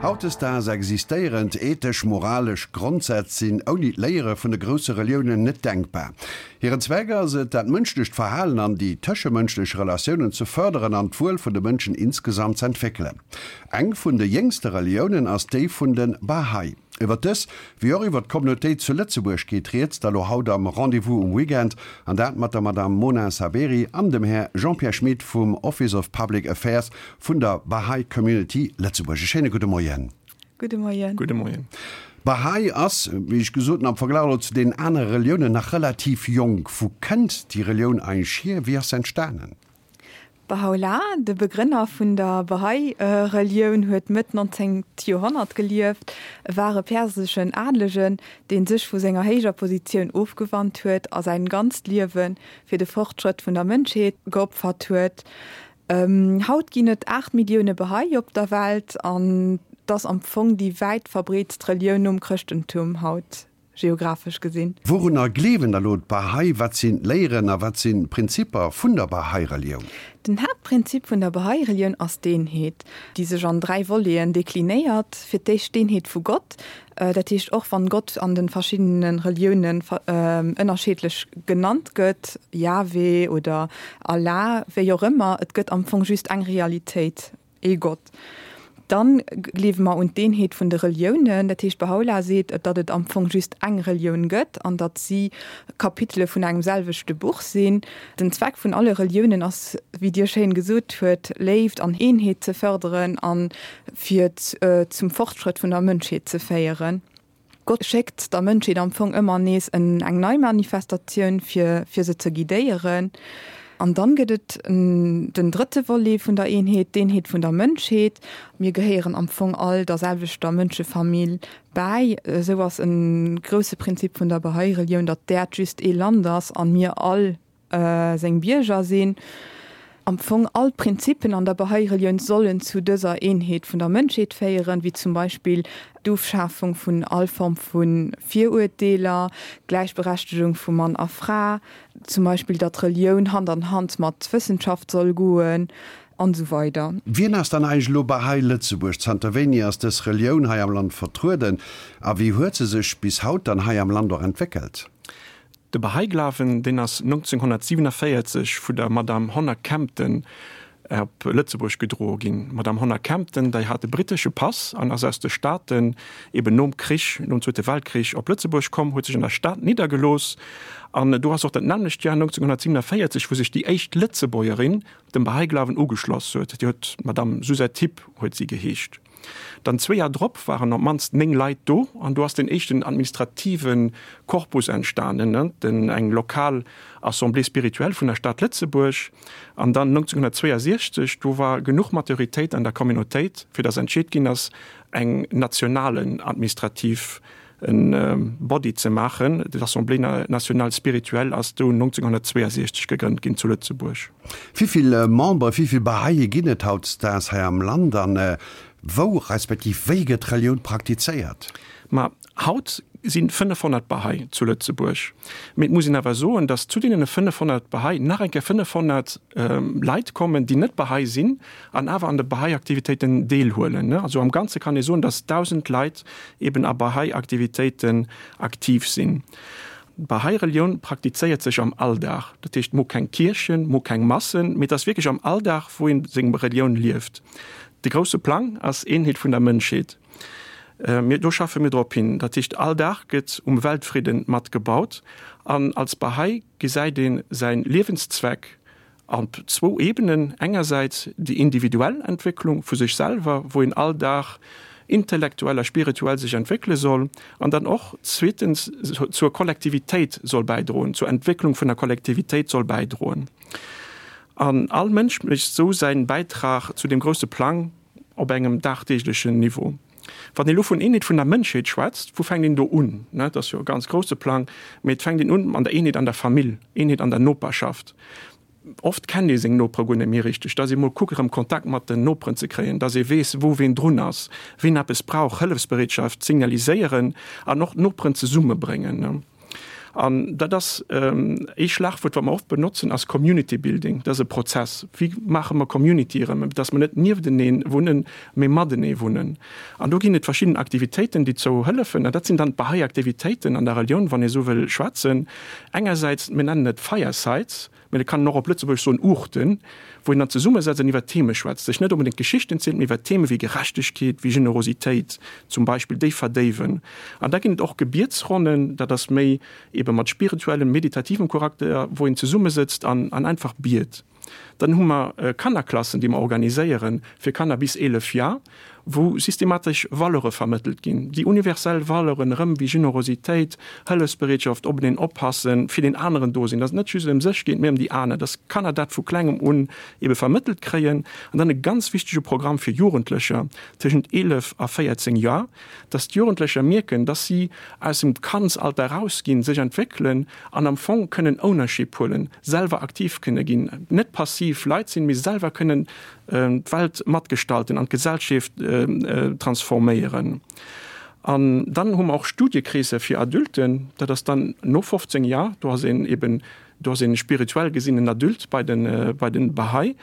Hautdesdaags existéierend ethesch-moralesch Grondsätz sinn ouni d'Léiere vun de grousse Reliounen net denkbar. Hiren Zweck ass et, dat mënschlecht Verhalen an déi tëschemënschlech Relatiounen ze fërderen an d'Wuel vun de Mënschen insgesamt z'entwéckelen. Eng vun de jéngste Reliounen ass déi vun de Bahá'í. Iwwer dës, wéi och iwwer d'Communautéit zu Lëtzebuerg geet rieds da lo haut am Rendez-vous um Weekend, an dat mat der Madame Mona Saberi an dem Här Jean-Pierre Schmit vum Office of Public Affairs vun der Bahá'í Community Lëtzebuerg. E schéine gudde Moien. Gudde Moien. Gudde Moien. Bahá'í ass, wéi ech gesot hunn, am Verglach elo zu deenen anere Reliounen nach relativ jonk. Wou kënnt déi Relioun eigentlech hier? Wéi ass se entstanen? Bahá'u'lláh, de Begrënner vun der Bahá'í Relioun, huet Mëtt 19. Joerhonnert gelieft. E war e perseschen Adelegen, deen sech vu senger héijer Positioun ofgewannt huet a säin ganzt Liewe fir de Fortschrëtt vun der Mënschheet geopfert huet. Haut ginn et 8 Millioune Bahá'í op der Welt an 't ass am Fong déi wäit verbreetst Relioun nom Chrëschtentum haut. Geographesch gesinn. Wourunner gleewen da lo d'Bahá'í? Wat sinn d'Léieren a wat sinn d'Prinzipper vun der Bahá'í Relioun? Den Haaptprinzip vun der Bahá'í Relioun ass d'Eenheet, déi sech an 3 Voleten deklinéiert. Fir d'éischt d'Eenheet vu Gott, dat heescht och wann Gott an de verschiddene Reliounen ënnerscheedlech genannt gëtt, Yahweh oder Allah, wéi och ëmmer, et gëtt am Fong just eng Realitéit. Ee Gott. Dann gleewe mer un d'Eenheet vun de Reliounen. Dat heescht, Bahá'u'lláh seet, datt et am Fong just eng Relioun gëtt an datt si Kapitele vun engem selwechte Buch sinn. Den Zweck vun alle Reliounen ass, wéi Dir schéin gesot huet, Léift an Eenheet ze fërderen a fir zum Fortschrëtt vun der Mënschheet ze féieren. Gott schéckt der Mënschheet am Fong ëmmer nees en eng nei Manifestatioun, fir fir se ze guidéieren. An dann gëtt et den drëtte Volet vun der Eenheet, d'Eenheet vun der Mënschheet. Mir gehéieren am Fong all der selwechter Mënschefamill bäi. Esou ass e grousse Prinzip vun der Bahá'í Relioun, datt d'Äerd just ee Land ass an mir all seng Bierger sinn. Am Fong all d'Prinzippen an der Bahá'í Relioun sollen zu dëser Eenheet vun der Mënschheet féieren, wéi zum Beispill d'Ofschafung vun all Form vu Viruerteeler, d'Gläichberechtegung vu Mann a Fra, zum Beispill datt Relioun Hand an Hand mat Wëssenschaft soll goen, an esou weider. Wien ass dann eigentlech elo Bahá'í Lëtzebuerg? Zanter wéini ass dës Relioun hei am Land vertrueden a wéi huet se sech bis haut dann hei am Land och entwéckelt? De Bahá'í Glawen, deen ass 1947 vu der Madame Honor Kempton op Lëtzebuerg gedroe ginn. D'Madame Honor Kempton, dei hat e brittesche Pass an ass aus de Staaten eben nom Krich, nom Zweete Weltkrich op Lëtzebuerg komm, huet sech an der Stad niddergelooss an do ass och dat nämmlecht Joer 1947, wou sech déi éischt Lëtzebuergerin dem Bahá'í Glawen ugeschloss huet. Déi huet d'Madame Suzette Hipp huet si geheescht. Dann zwee Jar drop waren op d'mannst 9 Leit do an do ass den éischten administrative Korpus entstanen, den eng lokal Assemblée spirituelle vun der Stad Lëtzebuerg. An dann 1962, do war genuch Maturitéit an der Communautéit, fir datt entscheet ginn ass, eng nationalen administrativ Body ze maachen. D'Assemblée nationale spirituelle ass do 1962 gegrënnt ginn zu Lëtzebuerg. Wéi vill Membere, wéi vill Bahá'íe ginn et hautdesdaags hei am Land an wou respektiv wéi gëtt d'Relioun praktizéiert? Ma haut si 500 Bahá'í zu Lëtzebuerg. Mee et muss een awer soen, datt zu deene 500 Bahá'í nach eng Kéier 500 Leit kommen, déi net Bahá'í sinn an awer an de Bahá'í-Aktivitéiten deelhuelen. Also am Ganze kann ee soen, datt 1.000 Leit eben a Bahá'í-Aktivitéiten aktiv sinn. D'Bahá'í Relioun praktizéiert sech am Alldag. Dat heescht, mo keng Kierchen, mo keng Massen, mee et ass wierklech am Alldag, wou een seng Relioun lieft. De grousse Plang ass Eenheet vun der Mënschheet. Mir, do schaffe mir drop hin. Dat heescht, all Dag gëtt um Weltfridden mat gebaut. An als Bahá'í gesäit ee säin Liewenszweck Op zwou Ebenen, engersäits déi individuell Entwécklung vu sech selwer, wou een all Dag intellektuell a spirituell sech entwéckele soll, an dann och zweetens zur Kollektivitéit soll bäidroen, zur Entwécklung vun der Kollektivitéit soll bäidroen. An all Mënsch mécht esou säin Bäitrag zu deem grousse Plang op engem dagdeeglechen Niveau. Wann een elo vun Eenheet vun der Mënschheet schwätzt, wou fänkt een do un? Dat ass jo e ganz grousse Plang, mee et fänkt een un an der Eenheet an der Famill, Eenheet an der Noperschaft. Oft kennt ee seng Nopere guer net méi richteg, dass ee mol kuckt erëm Kontakt mat den Noperen ze kréien, dass ee weess, wou ween drun ass, ween eppes brauch, Hëllefsbereetschaft signaliséieren an och d'Noperen zesummebréngen. An dat ass ee Schlagwuert, wat mer oft benotzen, ass Community Building. Dat ass e Prozess. Wéi maache mer Community erëm, dass mer net nieftenee wunnen, mee matenee wunnen? An do ginn et verschidden Aktivitéiten, déi zou hëllefen. An dat sinn dann d'Bahá'í Aktivitéiten an der Relioun, wann ee sou wëll schwätzen. Engersäits, mir nennen et Firesides, Mä et kann een och op Lëtzebuergesch soen Uuchten, wou een dann zesummesetzt an iwwer Theme schwätzt, sech net onbedéngt Geschichten zielt, mee iwwer Theme wéi Gerechtegkeet, wéi Generositéit zum Beispill, déi verdéiwen. An da ginn et och Gebietsronnen, dat ass méi ebe mat spirituellem, meditativem Charakter, wou een zesummesëtzt an einfach biet. Dann hu mer Kannerklassen, déi mer organiséieren fir Kanner bis 11 Jar, wou systematesch Valeure vermëttelt ginn, déi universell Valeuren erëm wéi Generositéit, Hëllefsbereetschaft, openeen oppassen, fir deen aneren do sinn, dass et net just ëm sech geet, mee ëm déi aner, dass Kanner dat vu klengem un ebe vermëttelt kréien. An dann e ganz wichtege Programm fir Jugendlecher tëschent 11 a 14 Joer, dass d'Jugendlecher mierken, dass si aus dem Kandsalter erausginn, sech entwéckelen an am Fong kënnen Ownership huelen, selwer aktiv kënne ginn, net passiv Leit sinn, mee selwer kënnen d'Welt matgestalten an d'Gesellschaft transforméieren. An dann hu mer och Studiekreesser fir Adulten, dat ass dann no 15 Jar, do ass een eben, do ass een spirituell gesinn en Adulte bei de bei den Bahá'í,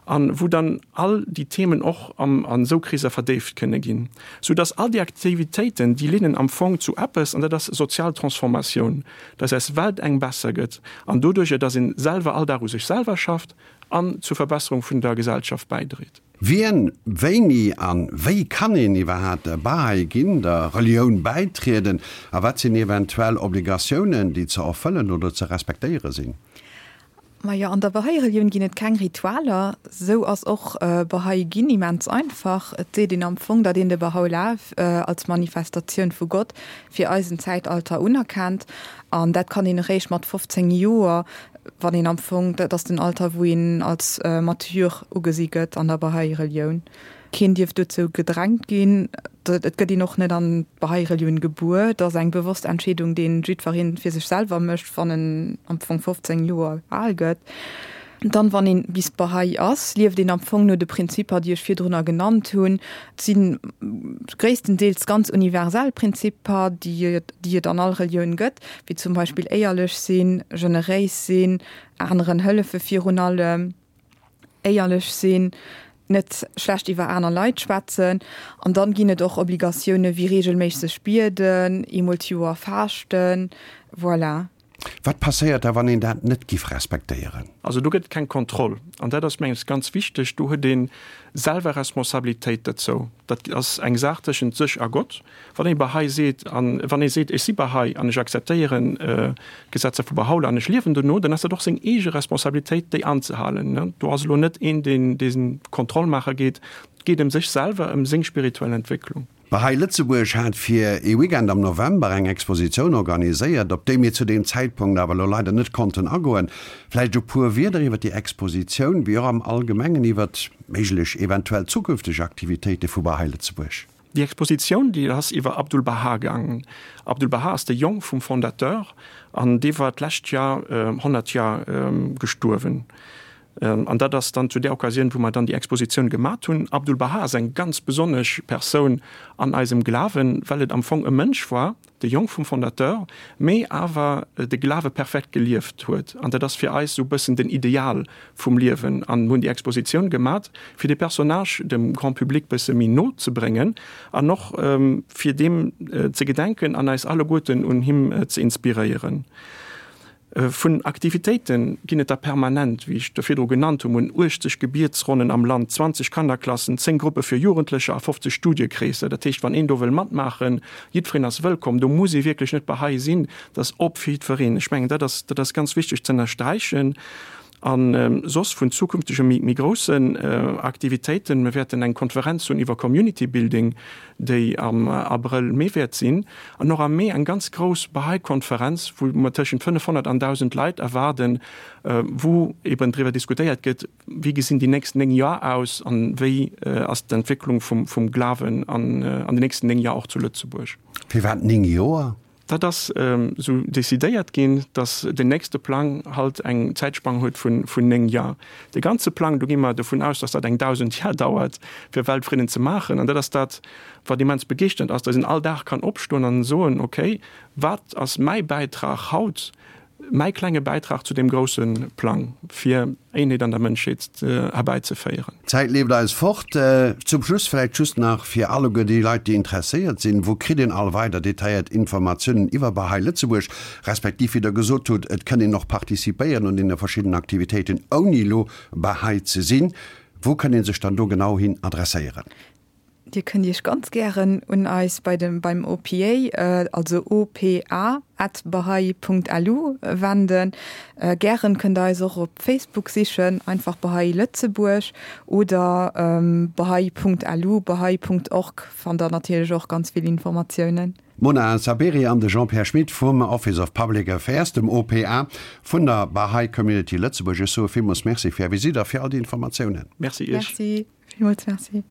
an wou dann all déi Themen och am an esou Kreesser verdéift kënne ginn, sou dass all déi Aktivitéiten, déi leeden am Fong zu eppes, an dat ass sozial Transformatioun, dass eis Welt eng besser gëtt an doduerjer, dass een selwer all Dag u sech selwer schafft, an zur Verbesserung vun der Gesellschaft bäidréit. Wien, wéini an wéi kann een iwwerhaat Bahá'í ginn, der Relioun bäitrieden a wat sinn eventuell Obligatiounen, déi ze erfëllen oder ze respektéiere sinn? Majo, an der Bahá'í Relioun ginn et keng Ritualer. Sou ass och Bahá'í ginn immens einfach. Et seet een am Fong, datt een de Bahá'u'lláh als Manifestatioun vu Gott fir eisen Zäitalter unerkennt an dat kann een eréischt mat 15 Joer Wann een am Fong, dat ass den Alter, wou een als mature ugesi gëtt an der Bahá'í Relioun. Keen dierf dozou gedrängt ginn. Et gëtt een och net an d'Bahá'í Relioun gebuer. Et ass eng bewosst Entscheedung, deen jiddweree fir sech selwer mécht, wann en am Fong 15 Joer al gëtt. Dann, wann een bis Bahá'í ass, lieft een am Fong no de Prinzipper, déi ech virdrunner genannt hunn. Et si gréisstendeels ganz universell Prinzipper, déi et an all Relioun gëtt. wéi zum Beispill éierlech sinn, generéis sinn, aneren hëllefe virun allem, éierlech sinn, net schlecht iwwer aner Leit schwätzen. An dann ginn et och Obligatioune wéi reegelméisseg bieden, eemol d'Joer faaschten, voilà. Wat passéiert da wann een dat net giff respektéieren? Also do gëtt et keng Kontroll an dat ass mengen ech ganz wichteg. Do huet ee selwer Responsabilitéit dozou. Dat ass eng Saach tëschent sech a Gott. Wann ee Bahá'í seet, an wann ee seet, ech si Bahá'í an ech akzeptéieren d'Gesetzer vu Bahá'u'lláh an ech liewen dono, dann ass dat och seng eege Responsabilitéit, déi anzehalen. Do ass elo net een, deen dee Kontroll maache geet. Et geet ëm sech selwer, ëm seng spirituell Entwécklung. Bahá'í Lëtzebuerg hat fir ee Weekend am November eng Expositioun organiséiert, op déi mir zu deem Zäitpunkt awer elo leider net konnten agoen. Vläicht e puer Wierder iwwer déi Expositioun, wéi och am Allgemengen iwwert méiglech eventuell zukünfteg Aktivitéite vu Bahá'í Lëtzebuerg. Déi Expositioun, déi ass iwwer Abdu'l-Bahá gaangen. Abdu'l-Bahá ass de Jong vum Fondateur an dee war d'lescht Jar 100 Jar gestuerwen. An dat ass dann zu där Occasioun, wou mer dann déi Expositioun gemat hunn. Abdu'l-Bahá ass eng ganz besonnesch Persoun an eisem Glawen, well et am Fong e Mënsch war, de Jong vum Fondateur, mee awer de Glawe perfekt gelieft huet. An dat ass fir eis esou e bëssen den Ideal vum Liewen. An hunn déi Expositioun gemat, fir de Personnage dem Grand public bësse méi no ze bréngen an och fir deem ze gedenken an eis alleguerten un him ze inspiréieren. Vun Aktivitéite ginn et der permanent, wéi ech der virdru genannt hunn. Mir hunn 80 Gebietsronnen am Land, 20 Kannerklassen, 10 Gruppe fir Jugendlecher a 50 Studiekreesser. Dat heescht, wann een do wëll matmaachen, jiddwereen ass wëllkomm. Do muss ee wierklech net Bahá'í sinn, dat ass op fir jiddwereen. Ech mengen, dat ass, dat ass ganz wichteg ze ënnersträichen. A soss vun zukünftege méi, méi groussen Aktivitéiten, mir wäerten eng Konferenz hunn iwwer Community Building, déi am Abrëll, Mee wäert sinn, an och am Mee eng ganz grouss Bahá'í Konferenz, wou mer tëschent 500 an 1.000 Leit erwaarden, wou eben driwwer diskutéiert gëtt, wéi gesinn déi nächst 9 Joer aus an wéi ass d'Entwécklung vum Glawen an den nächsten 9 Joer och zu Lëtzebuerg. Firwat 9 Joer? Dat ass esou decidéiert ginn, datt den nächste Plang halt eng Zäitspann huet vun 9 Jar. De ganze Plang, do gi mer dovun aus, datt dat eng 1.000 Jar dauert, fir Weltfridden ze maachen. An dat ass dat, wat immens begeeschternd ass, datt een all Dag kann opstoen an soen, okay, wat ass mäi Bäitrag haut, mäi klenge Bäitrag zu deem grousse Plang, fir Eenheet an der Mënschheet herbäizeféieren. D'Zäit leeft eis fort. Zum Schluss vläicht just nach fir alleguer déi Leit, déi interesséiert sinn, Wou kritt een all weider detailléiert Informatiounen iwwer Bahá'í Lëtzebuerg, respektiv, wéi Der gesot hutt, et kënn een och participéieren un deene verschiddenen Aktivitéiten, ouni elo Bahá'í ze sinn. Wou kënn ee sech dann do genau hin adresséieren? Dir kënnt Iech ganz gären un eis bei dem beim OPA, also opa at bahai Punkt lu wenden. Gären kënnt der eis och op Facebook sichen, einfach Bahai Lëtzebuerg oder bahai Punkt lu, bahai Punkt org fannt der natierlech och ganz vill Informatiounen. D'Mona Saberi an de Jean-Pierre Schmit vum Office of Public Affairs, dem OPA, vun der Bahai Community Lëtzebuerg. Ech soe villmools Merci fir Är Visitt a fir all déi Informatiounen. Merci Iech. Merci, villmools Merci.